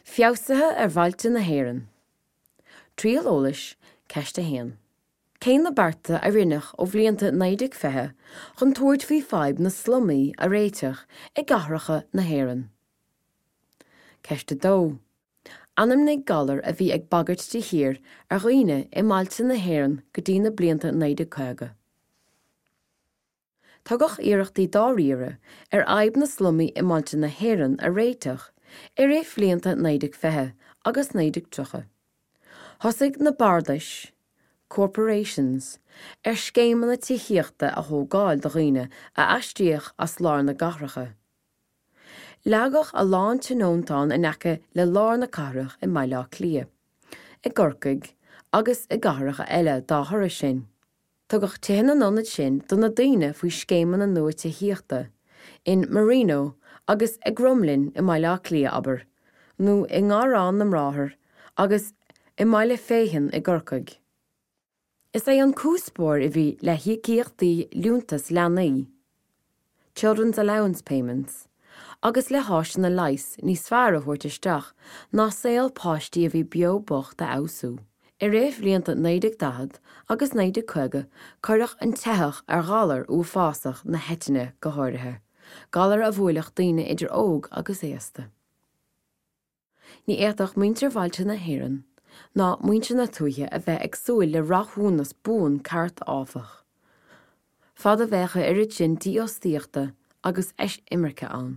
Feabhsuithe ar bhailte na hÉireann. Triail eolais, Ceist 1. Cé na bearta a rinneadh ó bhlianta 1920 chun tabhairt faoi fadhb na slumaí a réiteach i gcathracha na hÉireann? Ceist 2. Ainmnigh galar a bhí ag bagairt de shíor ar dhaoine i mbailte na hÉireann go dtí na blianta 1950. Tugadh iarrachtaí dáiríre ar fhadhb na slumaí i mbailte na hÉireann a réiteach i rith bhlianta 1920 agus 1930. Thosaigh na bardais, corporations, ar scéimeanna tithíochta a thógáil do dhaoine a aistríodh as lár na gcathracha. Leagadh a lán tionóntán in aice le lár na cathrach i mBaile Átha Cliath, i gCorcaigh agus i gcathracha eile dá thoradh sin. Tugadh tithe na n-ionad sin do na daoine faoi scéimeanna nua tithíochta, in Marino agus i gCromghlinn i mBaile Átha Cliath, abair, nó i nGarrán na mBráthar agus i mBaile Féithin i gCorcaigh. Is é an cuspóir a bhí le híocaíochtaí liúntas leanaí, Children's Allowance Payments, agus le háiseanna leighis níos fearr a thabhairt isteach ná saol páistí a bhí beo bocht a fheabhsú. I rith bhlianta 1940 agus 1950 cuireadh an teitheadh ar ghalar uafásach na heitinne go háirithe, galar a bhuailfeadh daoine idir óg agus aosta. Ní fhéadfadh muintir bhailte na hÉireann ná muintir na tuaithe a bheith ag súil le rathúnas buan ceart áfach, fad a bheadh a oiread sin dífhostaíochta agus eisimirce ann.